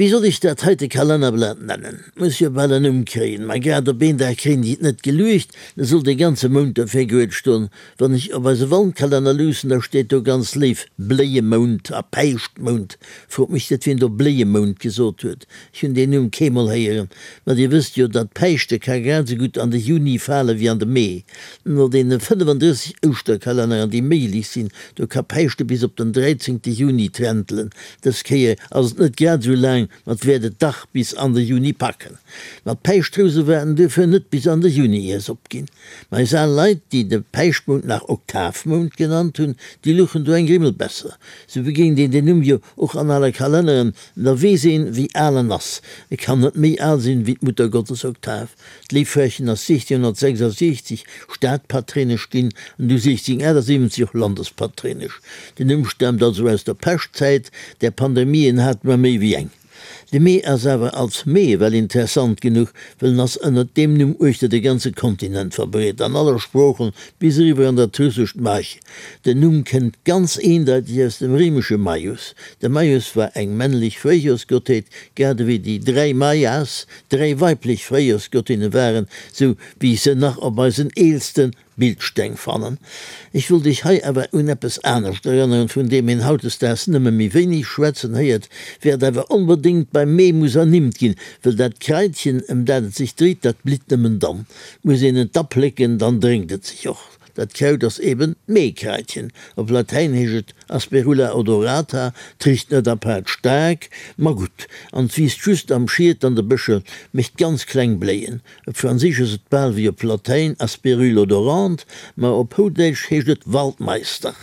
Wéi soll ech dat heite Kalennerblat nennen? Muss jo bal en Numm kréien. Ma grad op een Dag kréien déi et net geluecht, da soll dee ganze Mount dofir guet ston. Wann ech op eise Wandkalenner luussen, da steet do ganz léif Bléiemount a Päischtmount. Frot mech net, wien do Bléiemount gesot huet. Ech hunn deen Numm keemol héieren. Ma dir wësst jo, datt Päischte ka grad esou gutt an de Juni fale wéi an de Mee. No deene 35 Ouschterkalenneren, déi méiglech sinn, do ka Päischte bis op den dräizéngte Juni trentelen. Dës Kéier ass et net grad esou laang, ma et wäert et dach bis an de Juni packen. Ma d'Päischtrouse waerten duerfir net bis an de Juni ier s'opginn. Ma eis al Leit, déi de Päischtmount nach Oktavmount genannt hunn, déi luchen do eng Grimmel besser. Sou begéint een den Numm jo och an ale Kalenneren, da weess een, wéi al en ass. E kann net méi al sinn, wéi d'Muttergottesoktav. D'Léiffrächen ass 1666 Stadpatréinesch ginn an du 1678 och Landespatréinesch. Den Numm staamt also aus der Peschtzäit, där Pandemien hate mer méi wéi eng. De Mee ass awer als Mee well interessant genuch, well en ass ënnert deem Numm uechter de ganze Kontinent verbreet, an alle Sproochen, bis eriwwer an dat russescht Maj. Den Numm kënnt ganz eendeiteg aus dem réimesche Maius. De Maius war eng männlech Fréijorsgottheet, grad ewéi déi dräi Maias dräi weiblech Fréijorsgottinne waren, sou wéi ech se nach op eisen eelste Bildsteng fannen. Ech wollt Iech hei awer un eppes anescht erënneren, vun deem een hautdesdaags nëmme méi wéineg schwätzen héiert, wäert awer onbedéngt beim Mee muss ernimmt ginn, wëll dat Kraitchen, ëm dat et sech dréit, dat blitt nëmmen dann. Muss een et da plécken, dann drénkt et sech och. Dat Kraut ass eben d'Meekraitchen. Op Latäin heescht et Asperula odorata, 't richt net apaart staark, ma gutt, an 't wiisst just am Schiet an de Bëscher, mécht ganz kleng Bléien. Op Franséisch ass et bal wéi op Latäin Aspérule odorante, ma op Houdäitsch heescht et Waldmeister.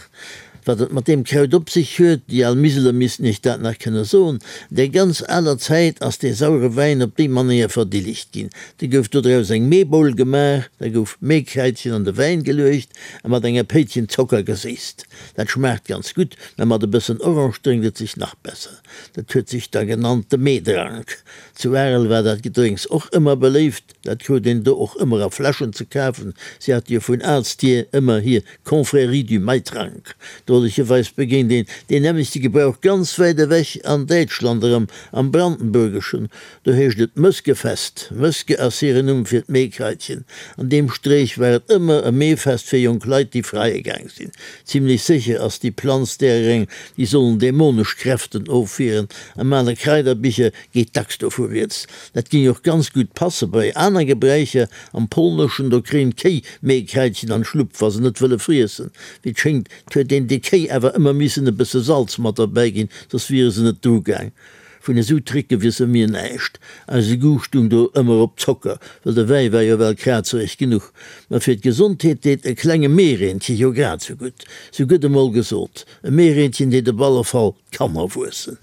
Wat et mat deem Kraut op sech huet, déi al Miseler missten iech dat nach kënne soen. Der ganz aler Zäit ass dee sauere Wäin op déi Manéier verdillegt ginn. Da gouf dodraus eng Meeboul gemaach, da gouf Meekraitchen an de Wäin geluecht a mat enger Péitchen Zocker geséisst. Dat schmaacht ganz gutt, mä mat e bëssen Orange drénkt et sech nach besser. Dat huet sech da genannt de Meedrank. Zu Arel war dat Gedrénks och ëmmer beléift. Dat krut een do och ëmmer a Fläschen ze kafen. Si hate jo vun aalst hier ëmmer hir Confrérie du Maitrank. Drolecherweis begéint een deen nämmlechte Gebrauch ganz wäit ewech an Däitschland erëm, am Brandenburgeschen. Do heescht et Mëskefest. Mëske ass hiren Numm fir d'Meekraitchen. An deem Streech war et ëmmer e Meefest fir jonk Leit, déi freie gaang sinn. Zimlech sécher ass déi Planz därer eng, déi sollen dämonesch Kräften ofwieren. Am ale Kraiderbicher geet dacks dovu rieds. Dat géing och ganz gutt passe bei aner Gebräicher. Am Polneschen, do kréien d'Kéi Meekraitchen an d'Schlupp, wa se net wëlle friessen. Wéi et schéngt, huet een de Kéi awer ëmmer missen e bësse Salz mat derbäi ginn, soss wiere se net drugaang. Vun esou Tricke wisse mir näischt. Eise Goût stung do ëmmer op Zocker, well de Wäi war jo well krazereg genuch. Ma fir d'Gesondheet deet e klenge Meereentche jo grad sou gutt. Sou gëtt emol gesot, e Meereentchen deet op alle Fall d'Kanner wuessen.